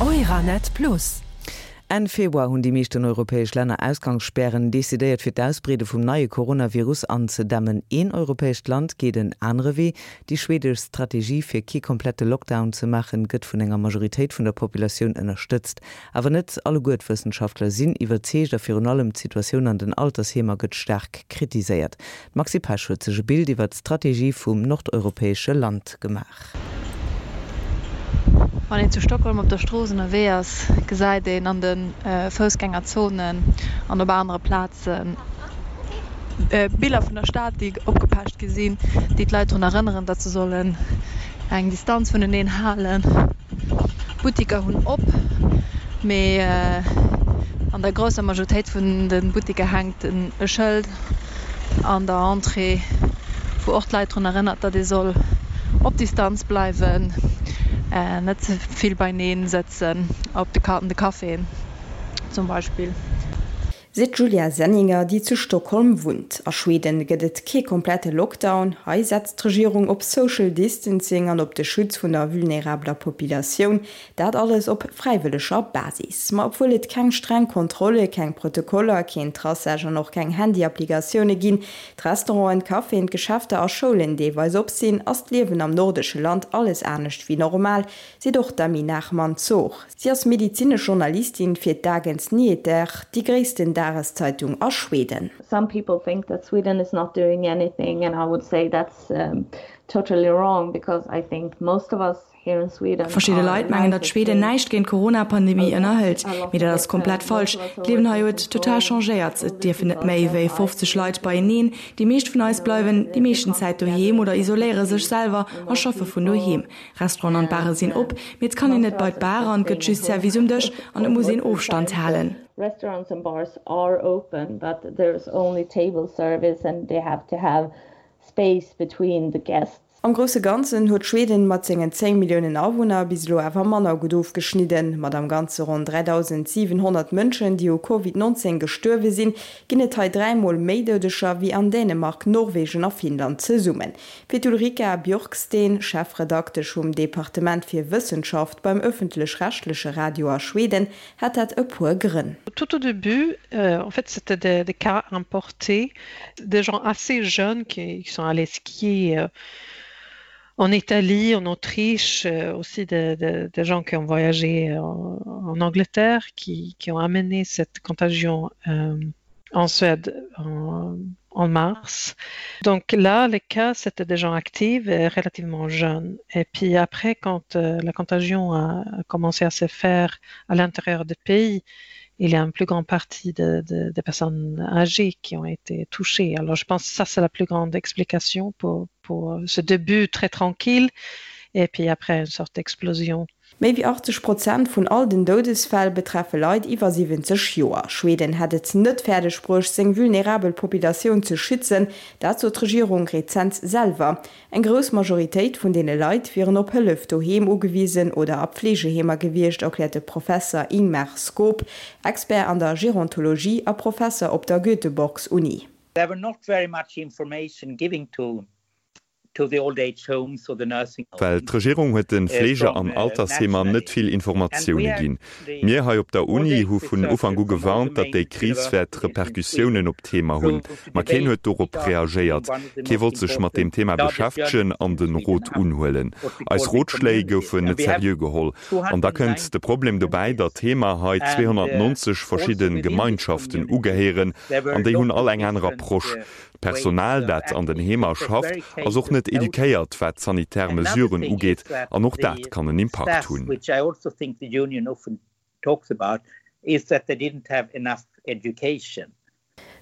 Euranet Plus. Enn Februar hunn déi meeschten europäesch Länner Ausgangsspären decidéiert, fir d'Ausbreede vum neie Coronavirus anzedämmen. Een europäescht Land geet en anere Wee. Déi schwedesch Strategie, fir kee komplette Lockdown ze maachen, gëtt vun enger Majoritéit vun der Populatioun ënnerstëtzt. Awer net alleguer d'Wëssenschaftler sinn iwwerzeegt a virun allem d'Situatioun an den Altersheemer gëtt staark kritiséiert. D'Maxi Pesch huet sech e Bild iwwer d'Strategie vum nordeuropäesche Land gemaach. Wann een zu Stockholm op der Strooss ënnerwee ass, gesäit een an de Foussgängerzonen an op anere Plaze Biller vun der Stad, déi opgepecht gi sinn, déi d'Leit drun erënneren, datt se sollen eng Distanz vuneneen halen. D'Buttiker hunn op, mee an der grousser Majoritéit vun de Buttiker hänkt e Schëld an der Entrée, wou och d'Leit drun erënnert, datt ee soll op Distanz bleiwen, net ze vill beineen sëtzen, op de an de Caféen zum Beispill. Seet d'Julia Senninger, déi zu Stockholm wunnt. A Schweden gëtt et kee komplette Lockdown. Hei setzt d'Regierung op Social Distancing an op de Schutz vun der vulnerabeler Populatioun. Dat alles op fräiwëlleger Basis. Ma obwuel et keng streng Kontrolle, keng Protokoller, keen Traçage an och keng Handy-Applikatioune ginn, d'Restauranten, d'Caféen, d'Geschäfter a Schoulen deelweis op sinn, ass d'Liewen am nordesche Land alles anescht wéi normal, seet och d'Amy Nachman-Zor. Si ass medizinesch Journalistin fir d'Dagens Nyheter, déi gréissten Dageszeitung a Schweden. Some people think that Sweden is not doing anything and I would say that's totally wrong because I think most of us here in Sweden Verschidde are Leit mengen, datt Schweden näischt géint d'Corona-Pandemie ënnerhëlt, mee dat ass komplett falsch. D'Liewen hei huet total changéiert. Et dierfen net méi wéi 50 Leit beieneen. Déi meescht vun eis bleiwen déi meeschten Zäit doheem oder isoléiere sech selwer a schaffe vun doheem. Restauranten an Bare sinn op, mee et kann een net bei d'Bar an et gëtt just Service um Dësch an et muss een Ofstand halen. Restaurants and bars are open, but there is only table service and they have to have space between the guests. Am grousse Ganzen huet Schweden mat sengen 10 Milliounen Awunner bis elo awer manner gutt ofgeschnidden. Mat am Ganze ronn 3.700 Mënschen, déi u Covid 19 gestuerwe sinn, ginn et hei dräimol méi Doudeger wéi an Dänemark, Norwegen a Finnland zesummen. Fir d'Ulrika Björksten, Chefredaktesch vum Departement fir Wëssenschaft beim ëffentlech-rechtleche Radio a Schweden, hätt dat e puer Grënn. Tout au début, en fait, c'était des, des cas importés, des gens assez jeunes qui, qui sont allés skier en Italie, en Autriche, aussi des, des, des gens qui ont voyagé en, en Angleterre, qui, qui ont amené cette contagion euh, en Suède en, en mars. Donc là, les cas, c'était des gens actifs et relativement jeunes. Et puis après, quand euh, la contagion a, a commencé à se faire à l'intérieur du pays, il y a une plus grande partie de, de, de personnes âgées qui ont été touchées. Alors je pense que ça, c'est la plus grande explication pour, pour ce début très tranquille et puis après une sorte d'explosion. Méi wéi 80 Prozent vun all den Doudesfäll betreffe Leit iwwer 70 Joer. Schweden hätt et net fäerdeg bruecht, seng vulnerabel Populatioun ze schützen. Dat sot d'Regierung rezent selwer. Eng grouss Majoritéit vun deene Leit wieren op Hëllef doheem ugewisen oder a Pflegeheemer gewiescht, erkläert de Professer Ingmar Skop, Expert an der Gerontologie a Professer op der Göteborgs-Uni. There were not very much information giving to Well d'Regierung huet de Fleege an Altersheemer net vill Informatioune ginn. Mir hei op der Uni hu vun Ufank u gewarnt, datt déi Kris wäert Repercussiounen op d'Heemer hunn. Ma keen huet dorop reagéiert. Kee wollt sech mat deem Thema beschäftegen an de Rot unhuelen. Eis Rotschléi goufen net seriö geholl. An da kënnt de Problem dobäi, datt d'Heemer hei 290 verschidde Gemeinschaften ugehéieren an déi hunn all eng aner Approche. D'Personal, dat an den Heemer schafft, ass och net eduquéiert, wat d'sanitär Mesuren ugeet, an och dat kann en Impakt hunn.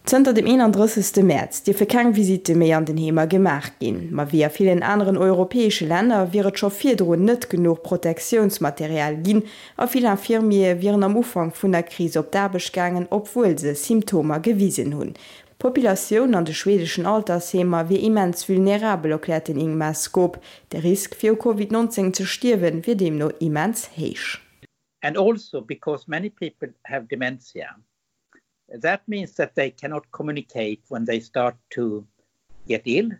Zënter dem 31. Mäerz dierfe keng Visitte méi an den Heemer gemaach ginn. Ma wéi a villen aneren europäesche Länner wier et scho virdrun net genuch Protektiounsmaterial ginn a vill Infirmiere wieren am Ufank vun der Kris op d'Aarbecht gaangen, obwuel se Symptomer gewisen hunn. D'Populatioun an de schwedeschen Altersheemer wier immens vulnerabel, erkläert den Ingmar Skop. De Risk fir u Covid 19 ze stierwen, wier deemno immens héich. And also because many people have dementia, that means that they cannot communicate when they start to get ill.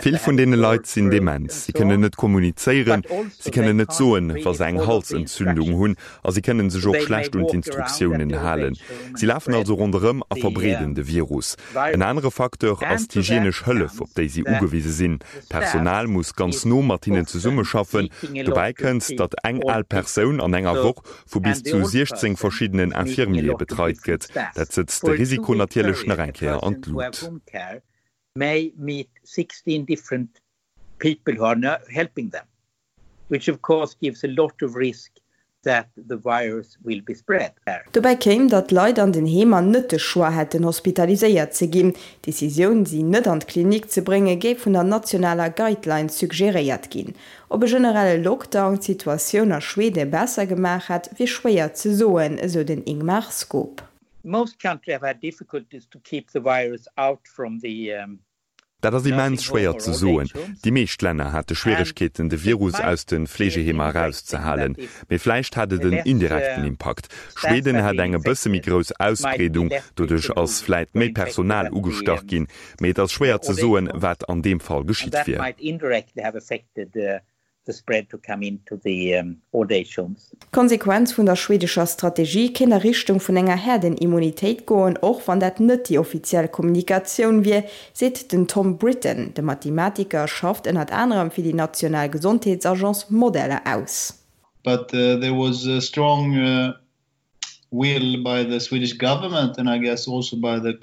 Vill vun deene Leit sinn dement, si kënnen net kommunizéieren, si kënnen net soen, wa se eng Halsentzündung hunn a si kënnen sech och schlecht un d'Instruktiounen halen. Si lafen also ronderëm a verbreeden de Virus. En anere Facteur ass d'hygienesch Hëllef, op déi si ugewise sinn. D'Personal muss ganz no mat hinnen zesummeschaffen. Dobäi kënnt, datt eng al Persoun an enger Woch vu bis zu 16 verschiddenen Infirmiere betreit gëtt. Dat sëtzt de Risiko natierlech nach eng Kéier an d'Lut. may meet 16 different people who are helping them, which of course gives a lot of risk that the virus will be spread. Dobäi kéim, datt d'Leit an den Heemer net de Choix hätten, hospitaliséiert ze ginn. D'Decisioun, si net an d'Klinik ze bréngen, géif vun der nationaler Guideline suggeréiert ginn. Ob e generelle Lockdown d'Situatioun a Schwede besser gemaach hätt, wier schwéier ze soen, esou den Ingmar Skop. Most country have had difficulties to keep the virus out from the Dat ass immens schwéier ze soen. Déi meescht Länner hate Schwieregkeeten, de Virus aus de Fleegeheemer erauszehalen. Mee vläicht hat et en indirekten Impakt. Schweden hat eng e bësse méi grouss Ausbreedung, doduerch ass vläit méi Personal ugestach ginn. Mee et ass schwéier ze soen, wat an deem Fall geschitt wier. the spread to come into the old age homes. D'Konsequenz vun der schwedescher Strategie kéint a Richtung vun enger Häerdenimmunitéit goen, och wann dat net déi offiziell Kommunikatioun wier, seet den Tom Britton. De Mathematiker schafft ënnert anerem fir déi national Gesondheetsagence Modeller aus. But there was a strong will by the Swedish government and I guess also by the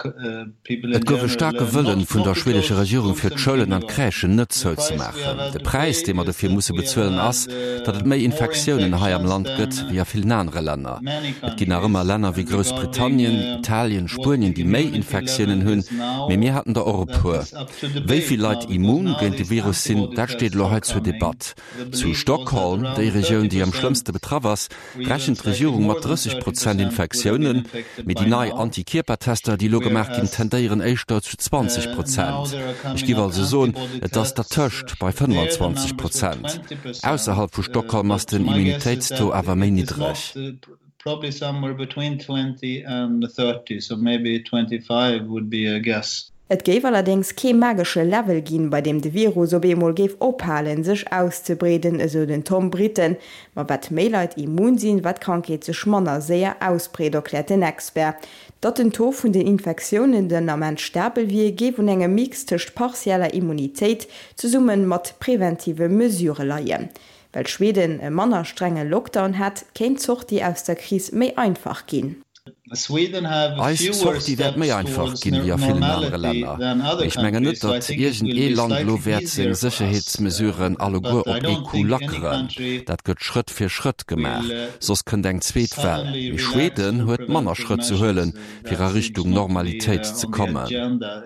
people in Et gouf e general staarke Wëllen not vun not der to schwedescher close Regierung schools fir and d'Schoulen an d'Crèchen kindergartens. net The price we zouzemaachen. have had De to Präis pay dee mer is dofir that musse we have bezuelen had ass, datt et méi more Infektiounen hei am infections Land than gëtt wéi a villen anere Länner. many Et ginn nach ëmmer countries Länner wéi and regarding Groussbritannien, Italien, what Spuenien the déi méi immunity level Infektiounen hunn, is now mee mir haten der och e that puer. is up to Wéi debate vill now Leit because immun now géint de these Virus sinn, antibody dat steet tests elo are hei zur coming. Debatt. The Zu belief was that Stockholm, déi around Regioun déi am 30% schlëmmste betraff ass, or even rechent slightly d'Regierung more mat than 30 30% Prozent would have been Infektiounen, infected mee déi by nei now, Antikierpertester, déi elo gemaach ginn, whereas tendéieren éischter zu 20 now Prozent. there are Ech coming giff up also soen, antibody et ass tests, dertëscht, bei there the 25 numbers were Prozent. 20%, Ausserhalb vu Stockholm ass but den my guess is Immunitéitstaux that awer méi it is niddreg. not probably somewhere between 20 and 30, so maybe 25 would be a guess. Et géif allerdéngs kee magesche Level ginn, bei deem de Virus op eemol géif ophalen, sech auszebreeden, esou den Tom Britten. Ma wat méi Leit immun sinn, wat d'Krankheet sech manner séier ausbreet, erkläert den Expert. Datt den Taux vun den Infektiounen den Ament stabel wier, géif un engem Mix tëscht partieller Immunitéit zesumme mat preventive Mesurë leien. Well Schweden e manner strenge Lockdown hätt, kéint d'Sortie aus der Kris méi einfach ginn. Eis Sortie wäert méi einfach ginn wéi a villen anere Länner. Mee ech mengen net, datt iergend ee Land elo wäert seng Sécherheetsmesuren alleguer op ee Coup lackeren. Dat gëtt Schrëtt fir Schrëtt gemaach, soss kënnt eng zweet Well. Mee Schweden huet manner Schrëtt ze huelen, fir a Richtung Normalitéit ze kommen.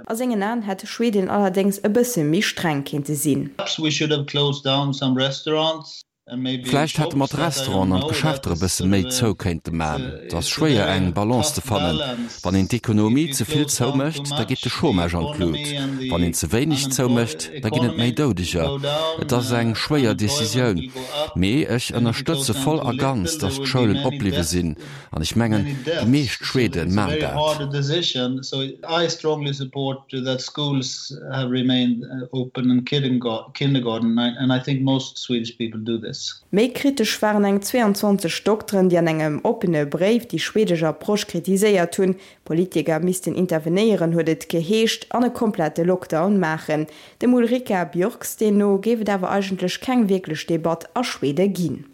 A sengen Aen hätt Schweden allerdéngs e bësse méi streng kéinte sinn. Vläicht hätte mer d'Restauranten an d'Geschäfter e bësse méi zou kéinte man. Et ass schwéier eng Balance ze fannen. Wann een d'Ekonomie ze vill zoumécht, da geet de Chômage an d'Lut. Wann een ze wéineg zoumécht, da ginn et méi Doudeger. Et ass eng schwéier Decisioun. Mee ech ënnerstëtze voll a ganz, datt d'Schoulen opbliwwe sinn. An ech mengen, déi meescht Schwede man dat. Méi kritesch waren eng 22 Dokteren, déi an engem oppene Bréif déi schwedesch Approche kritiséiert hunn. Politiker missten intervenéieren, huet et geheescht, an e komplette Lockdown maachen. Dem Ulrika Björksten no géif et awer eigentlech keng wierklech Debatt a Schwede ginn.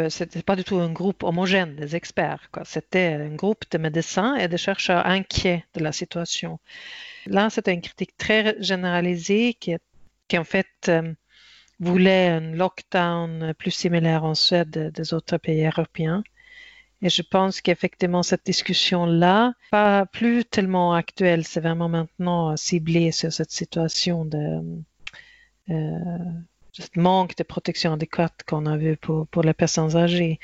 C'était pas du tout un groupe homogène des experts c'était un groupe de médecins et de chercheurs inquiets de la situation. Là c'était une critique très généralisée qui, qui en fait euh, voulait un lockdown plus similaire en Suède des autres pays européens. Et je pense qu'effectivement cette discussion là pas plus tellement actuelle, c'est vraiment maintenant ciblé sur cette situation de euh, ce manque de protection adéquate qu'on a vu pour, pour les personnes âgées.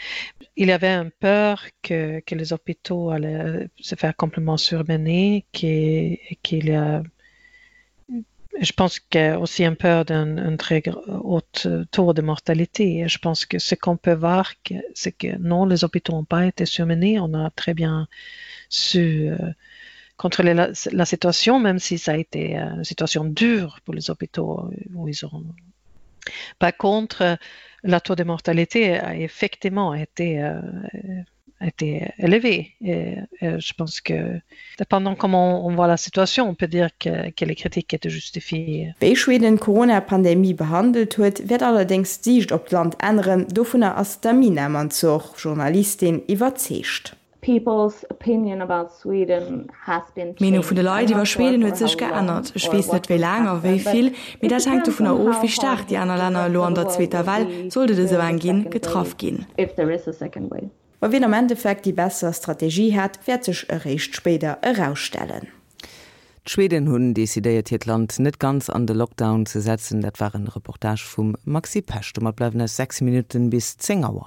Il y avait un peur que, que les hôpitaux allaient se faire complètement surmener, qu'il qu y a je pense qu'il y a aussi un peur d'un très haut taux de mortalité. Je pense que ce qu'on peut voir, c'est que non, les hôpitaux n'ont pas été surmenés. On a très bien su euh, contrôler la, la situation, même si ça a été euh, une situation dure pour les hôpitaux où ils ont. Par contre, la taux de mortalité a effectivement été euh, été élevé. Et, et je pense que dépendant comment on voit la situation, on peut dire que, que les critiques étaient justifiées. Wéi Schweden d'Corona-Pandemie behandelt huet, wäert allerdéngs d'Siicht op d'Land änneren, dovunner ass d'Amina Mansour, Journalistin, iwwerzeegt. People's opinion about Sweden has been D'Meenung vun de changed. Leit I'm iwwer not sure Schweden for huet sech how long geännert. Ech or weess what net wéi will laang a happen, wéi but vill, mee it dat hänkt depends dovunner on of, how wéi hard staark déi the aner Länner rest elo of an the der world zweeter will Well, be sollt et esou during eng the ginn, second getraff wave, ginn. if there is a second wave. Ma wien am Endeffekt déi besser Strategie hat, wäert sech eréischt spéider erausstellen. D'Schweden hunn decidéiert hiert Land net ganz an de Lockdown ze setzen. Dat war en Reportage vum Maxi Pesch. Domat bleiwen eis 6 Minutten bis 10 Auer.